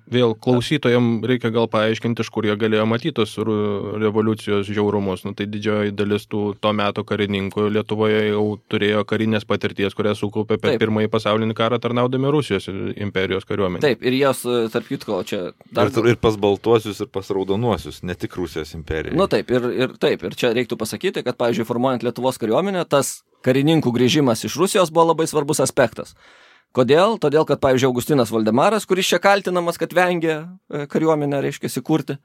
Vėl klausytojams reikia gal paaiškinti, iš kur jie galėjo matyti tos revoliucijos žiaurumus. Tai didžioji dalis to meto karininkų Lietuvoje jau turėjo karinės patirties, kurią sukaupė per Pirmąjį pasaulinį karą tarnaudami Rusijos imperijos kariuomenė. Taip, ir jos, tarp kitko, čia... Ir pas baltuosius, ir pas raudonuosius, ne tik Rusijos imperija. Ir čia reiktų pasakyti, kad, pavyzdžiui, formuojant Lietuvos kariuomenę, tas karininkų grįžimas iš Rusijos buvo labai svarbus aspektas. Kodėl? Todėl, kad, pavyzdžiui, Augustinas Voldemaras, kuris čia kaltinamas, kad vengia kariuomenę, reiškia, įkurti,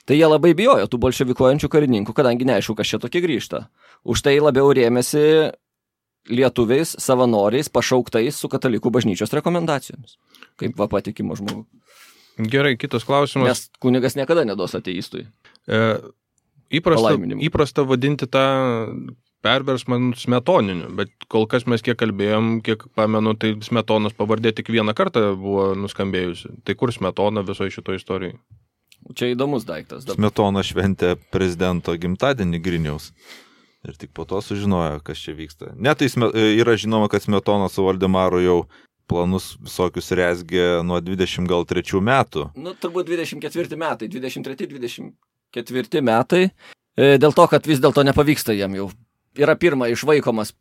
tai jie labai bijojo tų bolševikuojančių karininkų, kadangi neaišku, kas čia tokie grįžta. Už tai labiau rėmėsi lietuviais, savanoriais, pašauktais su katalikų bažnyčios rekomendacijomis, kaip patikimo žmogų. Gerai, kitas klausimas. Nes kunigas niekada neduos ateistui. Įprasta vadinti tą perversmą smetoniniu, bet kol kas mes kiek kalbėjom, kiek pamenu, tai Smetonos pavardė tik vieną kartą buvo nuskambėjusi. Tai kur Smetona visoje šitoje istorijoje? Čia įdomus daiktas. Smetona šventė prezidento gimtadienį Griniaus. Ir tik po to sužinojo, kas čia vyksta. Tai yra žinoma, kad Smetona su Voldemaru jau planus visokius rezgė nuo 23 metų. Turbūt 24 metai, 23-24 metai. Dėl to, kad vis dėlto nepavyksta jam jau. Yra išvaikomas,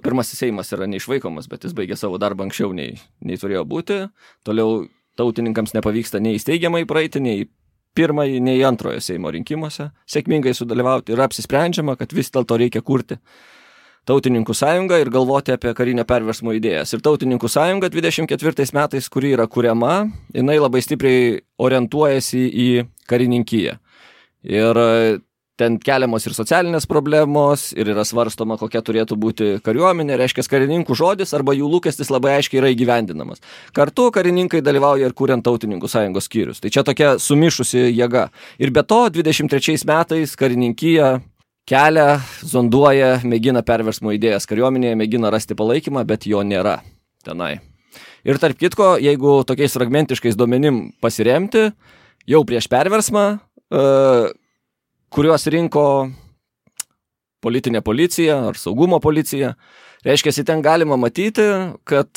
pirmasis Seimas yra neišvaikomas, bet jis baigė savo darbą anksčiau nei turėjo būti. Toliau tautininkams nepavyksta nei įsteigiamai praeiti, nei pirmąjį, nei antrojo Seimo rinkimuose sėkmingai sudalyvauti. Ir apsisprendžiama, kad vis dėlto reikia kurti Tautininkų sąjungą ir galvoti apie karinio perversmo idėjas. Ir Tautininkų sąjunga 24 metais, kuri yra kuriama, jinai labai stipriai orientuojasi į karininkiją. Ir ten keliamos ir socialinės problemos, ir yra svarstoma, kokia turėtų būti kariuomenė, reiškia karininkų žodis arba jų lūkestis labai aiškiai yra įgyvendinamas. Kartu karininkai dalyvauja ir kuriant Tautininkų sąjungos skyrius. Tai čia tokia sumišusi jėga. Ir be to, 23 metais karininkija kelia, zonduoja, mėgina perversmo idėjas kariuomenėje, mėgina rasti palaikymą, bet jo nėra tenai. Ir tarp kitko, jeigu tokiais fragmentiškais duomenim pasiremti, jau prieš perversmą, kuriuos rinko politinė policija ar saugumo policija. Reiškia, ten galima matyti, kad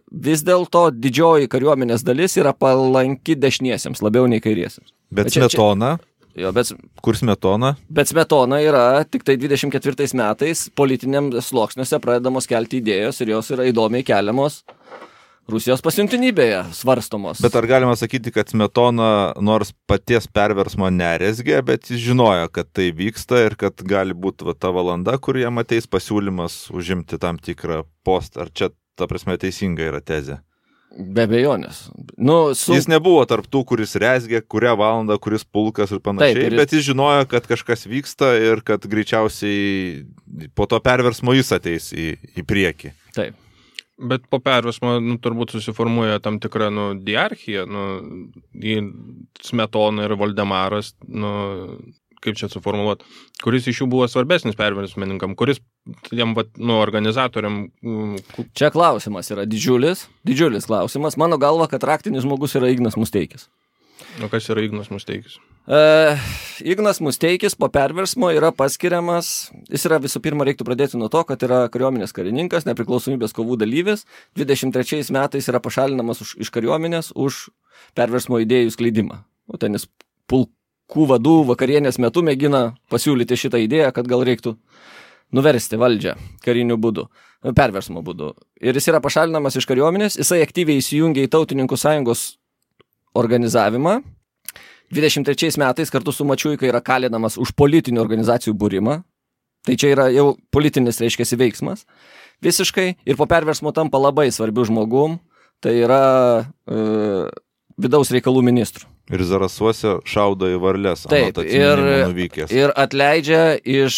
vis dėlto didžioji kariuomenės dalis yra palanki dešiniesiems, labiau nei kairiesiems. Bet Smetona? Kur Smetona? Bet Smetona yra tik tai 24 metais politiniam sluoksniuose pradedamos kelti idėjos ir jos yra įdomiai keliamos Rusijos pasiuntinybėje svarstomos. Bet ar galima sakyti, kad Smetona nors paties perversmo nerezgė, bet jis žinojo, kad tai vyksta ir kad gali būti ta valanda, kur jam ateis pasiūlymas užimti tam tikrą postą. Ar čia, ta prasme, teisinga yra tezė? Be abejonės. Jis nebuvo tarp tų, kuris rezgė, kurią valandą, kuris pulkas ir panašiai, bet jis žinojo, kad kažkas vyksta ir kad greičiausiai po to perversmo jis ateis į priekį. Taip. Bet po perversmo turbūt susiformuoja tam tikra diarchija, Smetona ir Voldemaras, kaip čia suformuluoti, kuris iš jų buvo svarbesnis perversmininkam, kuris tiem, organizatoriam... Čia klausimas yra didžiulis klausimas. Mano galva, kad raktinis žmogus yra Ignas Musteikis. O kas yra Ignas Musteikis? Ignas Musteikis po perversmo yra paskiriamas, jis yra visų pirma, reiktų pradėti nuo to, kad yra kariuomenės karininkas, nepriklausomybės kovų dalyvis, 23 metais yra pašalinamas iš kariuomenės už perversmo idėjų skleidimą. O ten jis pulkų vadų vakarienės metu mėgina pasiūlyti šitą idėją, kad gal reiktų nuversti valdžią kariniu būdu, perversmo būdu. Ir jis yra pašalinamas iš kariuomenės, jisai aktyviai įsijungia į Tautininkų sąjungos organizavimą. 23 metais kartu su Mačiuika yra kalinamas už politinių organizacijų būrimą. Tai čia yra jau politinis, reiškiasi, veiksmas. Visiškai. Ir po perversmo tampa labai svarbiu žmogum. Tai yra vidaus reikalų ministrų. Ir Zarasuose šaudo į varles. Taip, ir atleidžia ir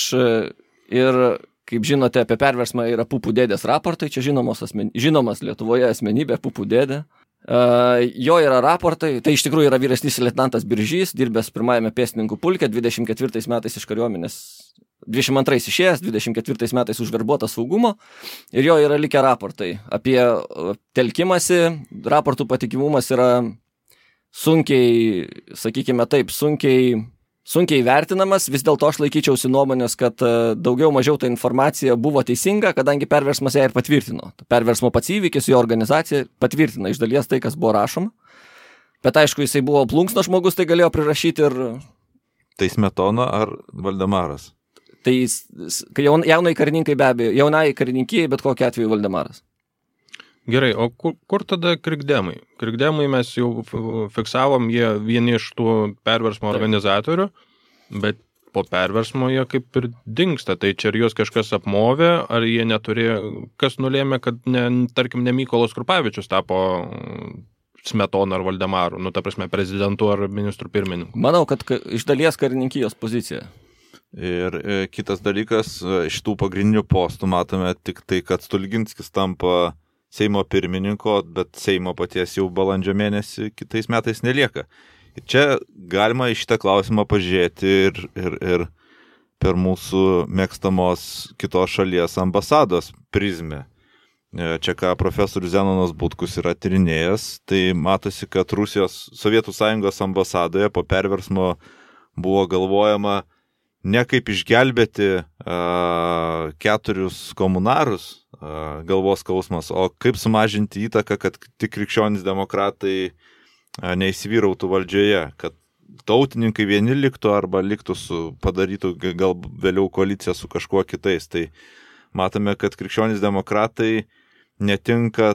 kaip žinote, apie perversmą yra Pupų dėdės raportai. Čia žinomas Lietuvoje asmenybė Pupų dėdė. Jo yra raportai, tai iš tikrųjų yra vyresnysis leitenantas Biržys, dirbęs pirmajame pėstininkų pulke, 24 metais iš kariuomenės, 22 išėjęs, 24 metais užverbuotas saugumo, ir jo yra likę raportai apie telkimąsi. Raportų patikimumas yra sunkiai, sakykime taip, sunkiai vertinamas. Vis dėlto aš laikyčiausi nuomonės, kad daugiau mažiau ta informacija buvo teisinga, kadangi perversmas ją ir patvirtino. Perversmo pats įvykis, jo organizacija patvirtina iš dalies tai, kas buvo rašoma. Bet aišku, jisai buvo plunksno žmogus, tai galėjo prirašyti ir... Tai Smetona ar Valdemaras? Tai jaunai karininkai be abejo, jaunai karininkijai, bet kokiu atveju Valdemaras. Gerai, o kur tada krikdemai? Krikdemai mes jau fiksavom, jie vieni iš tų perversmo organizatorių, bet po perversmo jie kaip ir dingsta. Tai čia ar juos kažkas apmovė, ar jie neturėjo, kas nulėmė, kad tarkim ne Mykolas Krupavičius tapo Smetona ar Valdemaru, ta prasme prezidentu ar ministrų pirmininku? Manau, kad iš dalies karininkijos pozicija. Ir kitas dalykas, iš tų pagrindinių postų matome tik tai, kad Stulginskis tampa Seimo pirmininko, bet Seimo paties jau balandžio mėnesį kitais metais nelieka. Ir čia galima į šitą klausimą pažiūrėti ir per mūsų mėgstamos kitos šalies ambasados prizmę. Čia ką profesorius Zenonas Butkus yra tyrinėjęs, tai matosi, kad Rusijos Sovietų Sąjungos ambasadoje po perversmo buvo galvojama ne kaip išgelbėti 4 komunarus, galvos skausmas, o kaip sumažinti įtaką, kad tik krikščionys demokratai neįsivyrautų valdžioje, kad tautininkai vieni liktų arba liktų padarytų gal vėliau koaliciją su kažkuo kitais. Tai matome, kad krikščionys demokratai netinka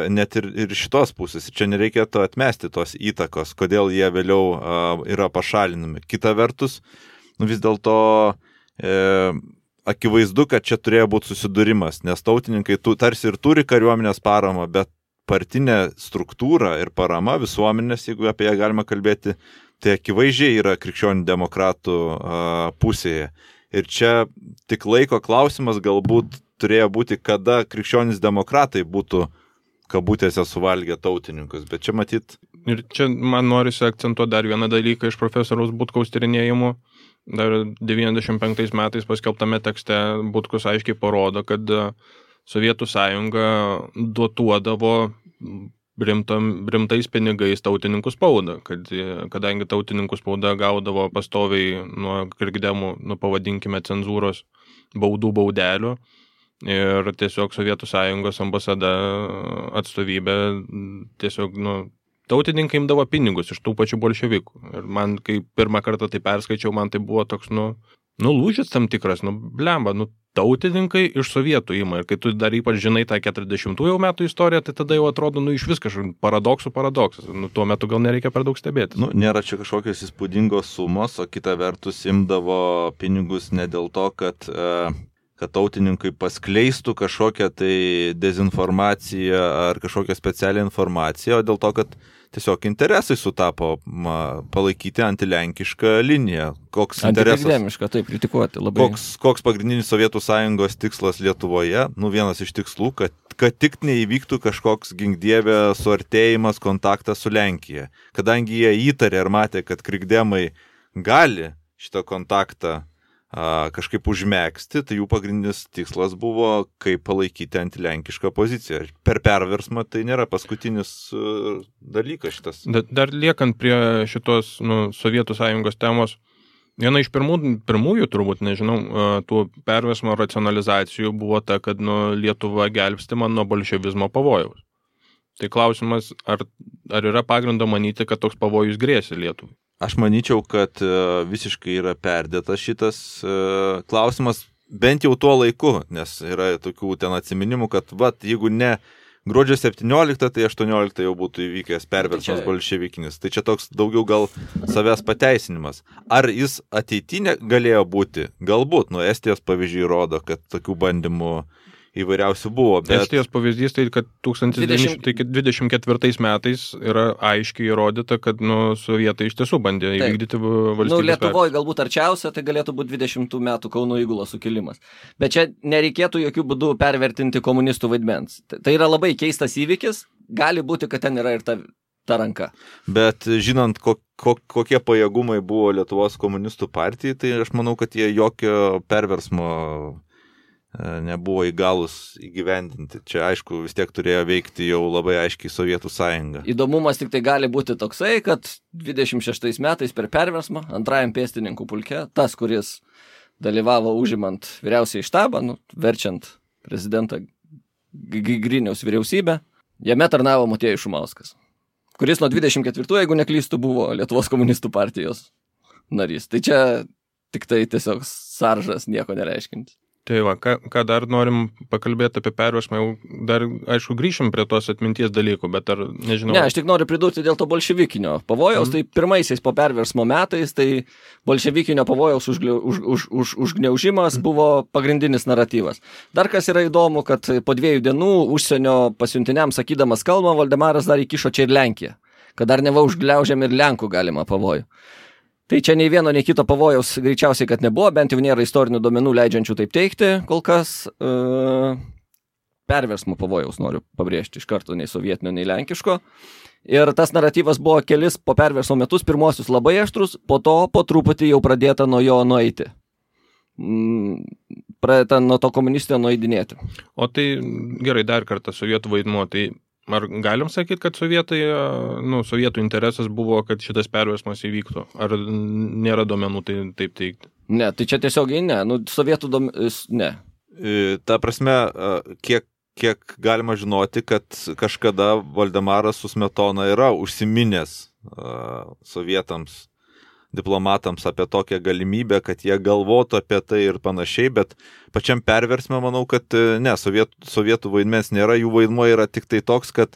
net ir šitos pusės. Čia nereikėtų atmesti tos įtakos, kodėl jie vėliau yra pašalinami. Kita vertus, vis dėlto akivaizdu, kad čia turėjo būti susidūrimas, nes tautininkai tarsi ir turi kariuomenės paramą, bet partinė struktūra ir parama visuomenės, jeigu apie ją galima kalbėti, tai akivaizdžiai yra krikščionių demokratų pusėje. Ir čia tik laiko klausimas galbūt turėjo būti, kada krikščionys demokratai būtų kabutėse suvalgę tautininkus, bet čia matyt... Ir čia man norisi akcentuoti dar vieną dalyką iš profesoriaus Butkaus tyrinėjimų. Dar 95 metais paskelbtame tekste Butkus aiškiai parodo, kad Sovietų sąjunga dotuodavo rimtais pinigais tautininkų spaudą, kadangi tautininkų spauda gaudavo pastoviai nuo krikdemų, pavadinkime, cenzūros baudelių, ir tiesiog Sovietų sąjungos ambasada atstovybė tiesiog, tautininkai imdavo pinigus iš tų pačių bolševikų. Ir man, kai pirmą kartą tai perskaičiau, man tai buvo toks, lūžis tam tikras, blemba, tautininkai iš sovietų ima. Ir kai tu dar ypač žinai tą 40-ųjų metų istoriją, tai tada jau atrodo, iš vis kažkoks paradoksas. Tuo metu gal nereikia per daug stebėtis. Nėra čia kažkokios įspūdingos sumos, o kita vertus imdavo pinigus ne dėl to, kad tautininkai paskleistų kažkokią tai dezinformaciją ar kažkokią specialią informaciją, o dėl to, kad tiesiog interesai sutapo palaikyti antilenkišką liniją. Koks interesas? Antikrikdemišką, taip, kritikuoti labai. Koks pagrindinis Sovietų sąjungos tikslas Lietuvoje? Vienas iš tikslų, kad tik neįvyktų kažkoks ginkdievė suartėjimas, kontaktas su Lenkija. Kadangi jie įtarė ir matė, kad krikdemai gali šitą kontaktą kažkaip užmėgsti, tai jų pagrindinis tikslas buvo, kaip palaikyti antilenkišką poziciją. Per perversmą tai nėra paskutinis dalykas šitas. Dar liekant prie šitos Sovietų sąjungos temos, viena iš pirmųjų, turbūt, nežinau, tų perversmo racionalizacijų buvo ta, kad Lietuva gelbstima nuo bolševizmo pavojaus. Tai klausimas, ar yra pagrindo manyti, kad toks pavojus grėsia Lietuvai? Aš manyčiau, kad visiškai yra perdėtas šitas klausimas, bent jau tuo laiku, nes yra tokių ten atsiminimų, kad jeigu ne gruodžio 17, tai 18 jau būtų įvykęs perversmas bolševikinis. Tai čia toks daugiau gal savęs pateisinimas. Ar jis ateitinė galėjo būti? Galbūt, Estijos pavyzdžiai rodo, kad tokių bandymų įvairiausių buvo. Bet... Estijos pavyzdys tai, kad 1924 metais yra aiškiai įrodyta, kad sovietai iš tiesų bandė įvykdyti valstybės. Lietuvoje galbūt arčiausia, tai galėtų būti 20 metų Kauno įgulos sukilimas. Bet čia nereikėtų jokių būdų pervertinti komunistų vaidmens. Tai yra labai keistas įvykis, gali būti, kad ten yra ir ta ranka. Bet žinant, kokie pajėgumai buvo Lietuvos komunistų partijai, tai aš manau, kad jie jokio perversmo nebuvo įgalus įgyvendinti. Čia, aišku, vis tiek turėjo veikti jau labai aiškiai Sovietų sąjunga. Įdomumas tik tai gali būti toksai, kad 26 metais per perversmą antrajam pėstininkų pulke, tas, kuris dalyvavo užimant vyriausiąjį štabą, verčiant prezidentą Griniaus vyriausybę, jame tarnavo Motiejus Šumauskas, kuris nuo 24, jeigu neklystų, buvo Lietuvos komunistų partijos narys. Tai čia tik tai tiesiog saržas, nieko nereiškinti. Tai va, ką dar norim pakalbėti apie perversmą, jau dar, aišku, grįšim prie tos atminties dalykų, bet ar nežinau... Ne, aš tik noriu pridurti dėl to bolševikinio pavojaus, tai pirmaisiais po perversmo metais, tai bolševikinio pavojaus užgniaužimas buvo pagrindinis naratyvas. Dar kas yra įdomu, kad po 2 dienų užsienio pasiuntiniams sakydamas kalbą, Valdemaras dar įkišo čia ir Lenkiją, kad dar neva užgliaužiam ir Lenkų galima pavojų. Tai čia nei vieno, nei kito pavojaus greičiausiai, kad nebuvo, bent jau nėra istorinių duomenų leidžiančių taip teikti, kol kas perversmo pavojaus noriu pabrėžti iš karto, nei sovietinio, nei lenkiško. Ir tas naratyvas buvo kelis po perversmo metus, pirmosius labai aštrus, po to po truputį jau pradėta nuo jo nueiti. Pradėta nuo to komunistinio nueidinėti. O tai gerai, dar kartą sovietų vaidmuo, tai ar galim sakyti, kad sovietų interesas buvo, kad šitas perversmas įvyktų? Ar nėra duomenų tai taip teikti? Ne, tai čia tiesiogiai ne. Sovietų ne. Ta prasme, kiek galima žinoti, kad kažkada Valdemaras su Smetona yra užsiminęs sovietams, diplomatams apie tokią galimybę, kad jie galvotų apie tai ir panašiai, bet pačiam perversme manau, kad ne, sovietų vaidmens nėra, jų vaidmuo yra tik tai toks, kad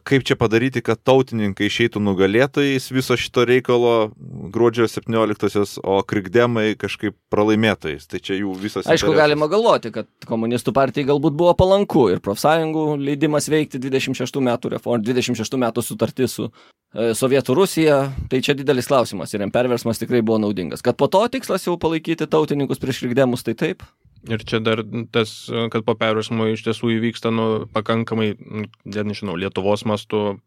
kaip čia padaryti, kad tautininkai išeitų nugalėtojais viso šito reikalo gruodžio 17-osios, o krikdemai kažkaip pralaimėtojais. Tai čia jų visas interesas. Aišku, galima galvoti, kad komunistų partijai galbūt buvo palanku ir profsąjungų leidimas veikti 26 metų reformą, 26 metų sutartį su Sovietų Rusija, tai čia didelis klausimas ir perversmas tikrai buvo naudingas. Kad po to tikslas jau palaikyti tautininkus prieš krikdemus, tai taip. Ir čia dar tas, kad po perversmo iš tiesų įvyksta pakankamai, nežinau, Lietuvos mastu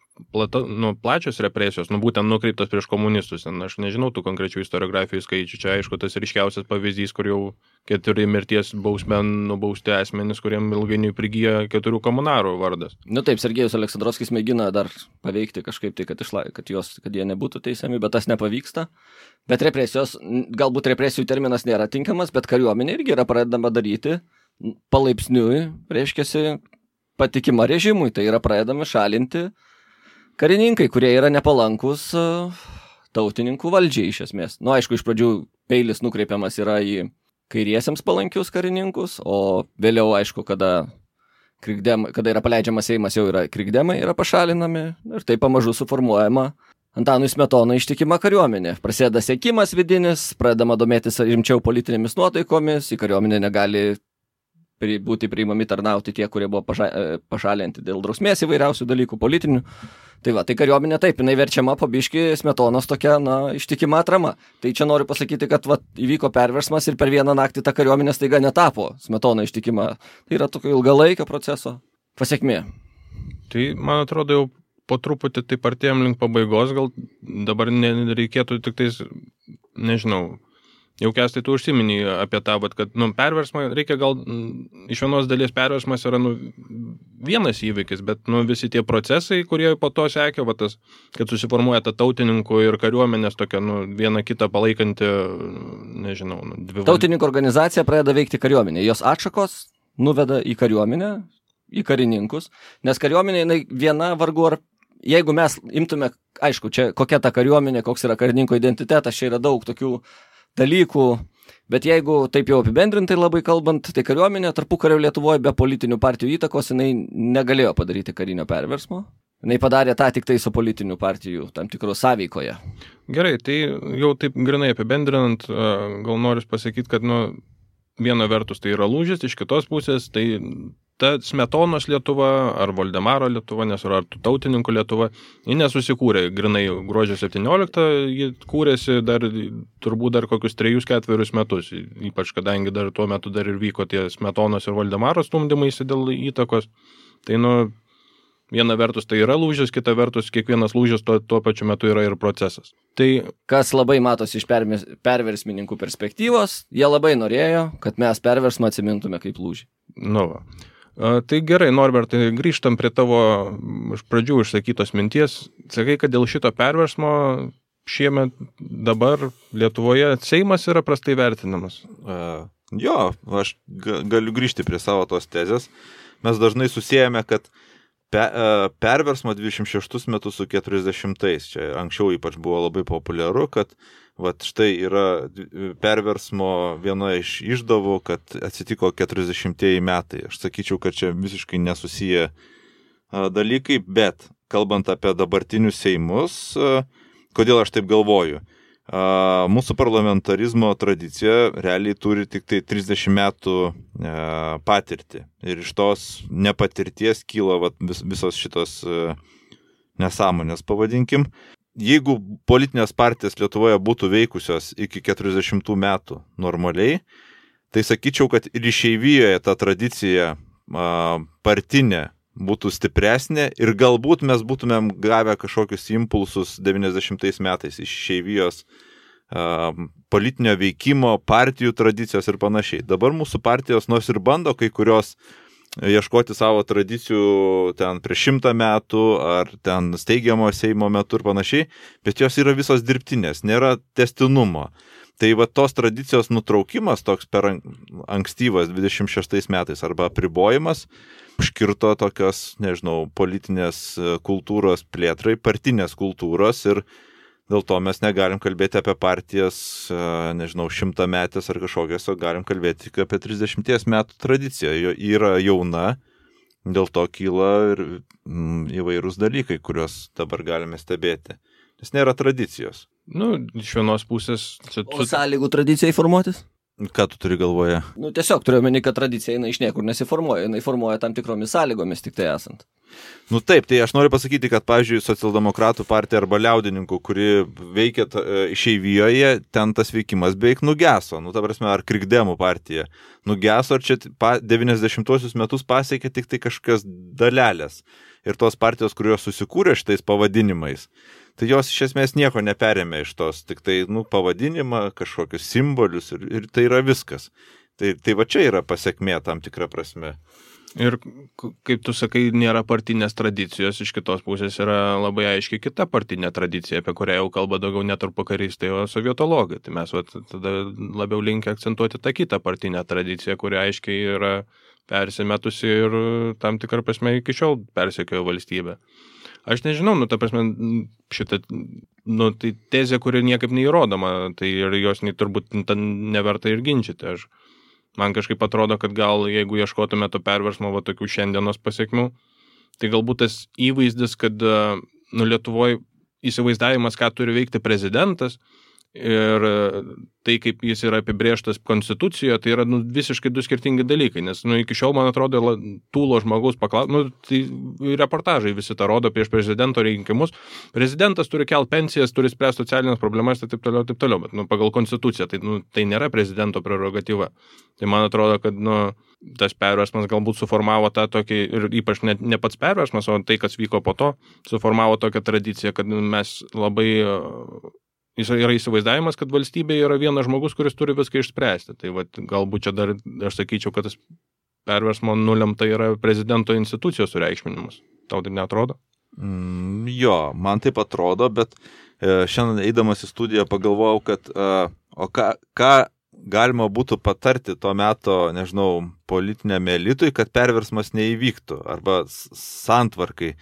plačios represijos, būtent nukreiptos prieš komunistus. Aš nežinau tų konkrečių istoriografijų skaičių. Čia, aišku, tas ryškiausias pavyzdys, kur jau 4 mirties bausme nubausti asmenys, kuriem ilgainiui prigyja 4 komunarų vardas. Taip, Sergejus Aleksandrovskis mėgina dar paveikti kažkaip tai, kad jie nebūtų teisiami, bet tas nepavyksta. Bet represijos, galbūt represijų terminas nėra tinkamas, bet kariuomenė irgi yra pradedama daryti palaipsniui, reiškiasi, patikima režimui. Tai yra pradedami šalinti karininkai, kurie yra nepalankus tautininkų valdžiai iš esmės. Aišku, iš pradžių peilis nukreipiamas yra į kairiesiems palankius karininkus, o vėliau, aišku, kada yra paleidžiamas Seimas, jau yra krikdemai, yra pašalinami ir tai pamažu suformuojama Antanui Smetonai ištikima kariuomenė. Prasideda sekimas vidinis, pradedama domėtis rimčiau politinėmis nuotaikomis, į kariuomenę negali būti priimami tarnauti tie, kurie buvo pašalinti dėl drausmės įvairiausių dalykų politinių. Tai va, tai kariuomenė taip, jinai verčiama po biškį Smetonos tokia, ištikima atrama. Tai čia noriu pasakyti, kad įvyko perversmas ir per vieną naktį ta kariuomenė staiga netapo Smetona ištikima. Tai yra tokio ilgalaikio proceso pasekmė. Tai, man atrodo, jau po truputį taip artėjom link pabaigos, gal dabar nereikėtų tik tais nežinau, jau Kęstai tu užsiminį apie tą, kad perversmą reikia gal, iš vienos dalies perversmas yra vienas įvykis, bet visi tie procesai, kurie po to sekė, tas, kad susiformuoja ta tautininkų ir kariuomenės tokia viena kitą palaikanti, nežinau, dvi. Tautininkų organizacija pradeda veikti kariuomenė, jos atšakos nuveda į kariuomenę, į karininkus, nes kariuomenė viena vargu ar, jeigu mes imtume, aišku, čia kokia ta kariuomenė, koks yra karininko identitetas, čia yra daug tokių dalykų, bet jeigu taip jau apibendrintai labai kalbant, tai kariuomenė tarpukario Lietuvoje be politinių partijų įtakos jinai negalėjo padaryti karinio perversmo. Jinai padarė tą tik tai su politinių partijų tam tikro sąveikoje. Gerai, tai jau taip grinai apibendrinant, gal noriu pasakyti, kad viena vertus tai yra lūžis, iš kitos pusės tai ta Smetonos Lietuva ar Voldemaro Lietuva, ar tautininkų Lietuva, ji nesusikūrė grinai gruodžio 17, ji kūrėsi turbūt dar kokius 3-4 metus, ypač kadangi dar tuo metu dar ir vyko tie Smetonos ir Voldemaro stumdymaisi dėl įtakos. Tai viena vertus tai yra lūžis, kita vertus kiekvienas lūžis tuo pačiu metu yra ir procesas. Tai kas labai matosi iš perversmininkų perspektyvos, jie labai norėjo, kad mes perversmą atsimintume kaip lūžį. Tai gerai, Norbertai, grįžtam prie tavo iš pradžių išsakytos minties. Sakai, kad dėl šito perversmo šiemet dabar Lietuvoje Seimas yra prastai vertinamas. Jo, aš galiu grįžti prie savo tos tezės. Mes dažnai susijame, kad perversmo 26 metus su 40-ais. Čia anksčiau ypač buvo labai populiaru, kad štai yra perversmo viena iš išdavų, kad atsitiko 40-ieji metai. Aš sakyčiau, kad čia visiškai nesusiję dalykai, bet kalbant apie dabartinius Seimus, kodėl aš taip galvoju? Mūsų parlamentarizmo tradicija realiai turi tik tai 30 metų patirtį. Ir iš tos nepatirties kyla visos šitos nesąmonės, pavadinkim. Jeigu politinės partijos Lietuvoje būtų veikusios iki 40 metų normaliai, tai sakyčiau, kad ir išeivijoje ta tradicija partinė būtų stipresnė ir galbūt mes būtumėm gavę kažkokius impulsus 90 metais iš išeivijos politinio veikimo, partijų tradicijos ir panašiai. Dabar mūsų partijos nors ir bando kai kurios ieškoti savo tradicijų ten prieš 100 metų ar ten steigiamo Seimo metu ir panašiai, bet jos yra visos dirbtinės, nėra tęstinumo. Tai tos tradicijos nutraukimas toks per ankstyvas 26 metais arba apribojimas užkirto tokios, nežinau, politinės kultūros plėtrai, partinės kultūros ir dėl to mes negalim kalbėti apie partijas, nežinau, 100 metės ar kažkokias, o galim kalbėti tik apie 30 metų tradiciją. Jo yra jauna, dėl to kyla ir įvairūs dalykai, kuriuos dabar galime stebėti. Nes nėra tradicijos. Iš vienos pusės... O sąlygų tradicijai formuotis? Ką tu turi galvoje? Tiesiog turiu omeny, kad tradicija iš niekur nesiformuoja, jinai formuoja tam tikromis sąlygomis tik tai esant. Taip, tai aš noriu pasakyti, kad, pavyzdžiui, socialdemokratų partija arba liaudininkų, kuri veikia išeivijoje, ten tas veikimas beveik nugeso. Ta prasme, ar krikdemų partija nugeso, ar čia 90-osius metus pasiekė tik tai kažkokios dalelės. Ir tos partijos, kurios susikūrė šitais pavadinimais, tai jos iš esmės nieko neperėmė iš tos, tik tai pavadinimą, kažkokius simbolius ir tai yra viskas. Tai va čia yra pasekmė tam tikra prasme. Ir kaip tu sakai, nėra partinės tradicijos, iš kitos pusės yra labai aiškiai kita partinė tradicija, apie kurią jau kalba daugiau ne tarpukaristai, o sovietologai. Tai mes tada labiau linkę akcentuoti tą kitą partinę tradiciją, kuri aiškiai yra persimetusi ir tam tikrą prasme iki šiol persekiojo valstybę. Aš nežinau, ta prasme, šitą, tai tezė, kuri niekaip neįrodoma, tai ir jos turbūt neverta ir ginčyti. Man kažkaip atrodo, kad gal jeigu ieškotume to perversmo tokių šiandienos pasiekmių, tai galbūt tas įvaizdis, kad Lietuvoje įsivaizdavimas, ką turi veikti prezidentas ir tai, kaip jis yra apibrėžtas konstitucijoje, tai yra visiškai du skirtingi dalykai, nes iki šiol, man atrodo, tūlo žmogaus tai reportažai visi tą rodo prieš prezidento rinkimus. Prezidentas turi kelt pensijas, turi spręsti socialinės problemas ir taip toliau, bet pagal konstituciją tai nėra prezidento prerogatyva. Tai man atrodo, kad tas perversmas galbūt suformavo tą tokį, ir ypač ne pats perversmas, o tai, kas vyko po to, suformavo tokią tradiciją, kad mes labai yra įsivaizdavimas, kad valstybė yra vienas žmogus, kuris turi viską išspręsti. Tai vat, galbūt čia dar aš sakyčiau, kad tas perversmo nulemta yra prezidento institucijos sureikšminimas. Tau tai neatrodo? Jo, man taip atrodo, bet šiandien eidamas į studiją pagalvojau, kad ką galima būtų patarti to meto, nežinau, politiniam elitui, kad perversmas neįvyktų arba santvarkai.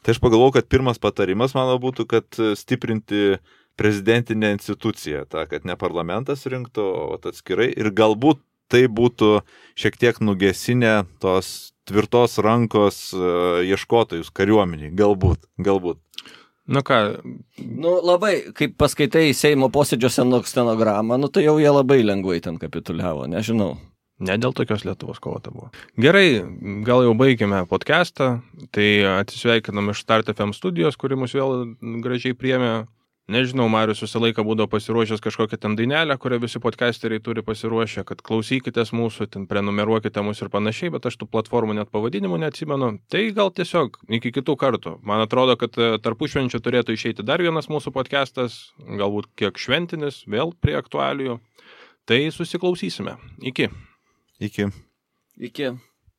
Tai aš pagalvojau, kad pirmas patarimas mano būtų, kad stiprinti prezidentinę instituciją, kad ne parlamentas rinktų, o atskirai ir galbūt tai būtų šiek tiek nugesinę tos tvirtos rankos ieškotojus kariuomeniai. Galbūt. Na ką? Labai, kaip paskaitai Seimo posėdžio stenogramą, tai jau jie labai lengvai ten kapituliavo, nežinau. Ne dėl tokios Lietuvos kovota buvo. Gerai, gal jau baigėme podcastą, tai atsisveikinam iš Start FM studijos, kuri mus vėl gražiai priėmė. Nežinau, Marius visą laiką būdavo pasiruošęs kažkokią ten dainelę, kurią visi podcasteriai turi pasiruošę, kad klausykitės mūsų, ten prenumeruokite mus ir panašiai, bet aš tų platformų net pavadinimų neatsimenu. Tai gal tiesiog iki kitų kartų. Man atrodo, kad tarpušvenčio turėtų išeiti dar vienas mūsų podcastas, galbūt kiek šventinis, vėl prie aktualijų. Tai susiklausysime. Iki. Iki. Iki.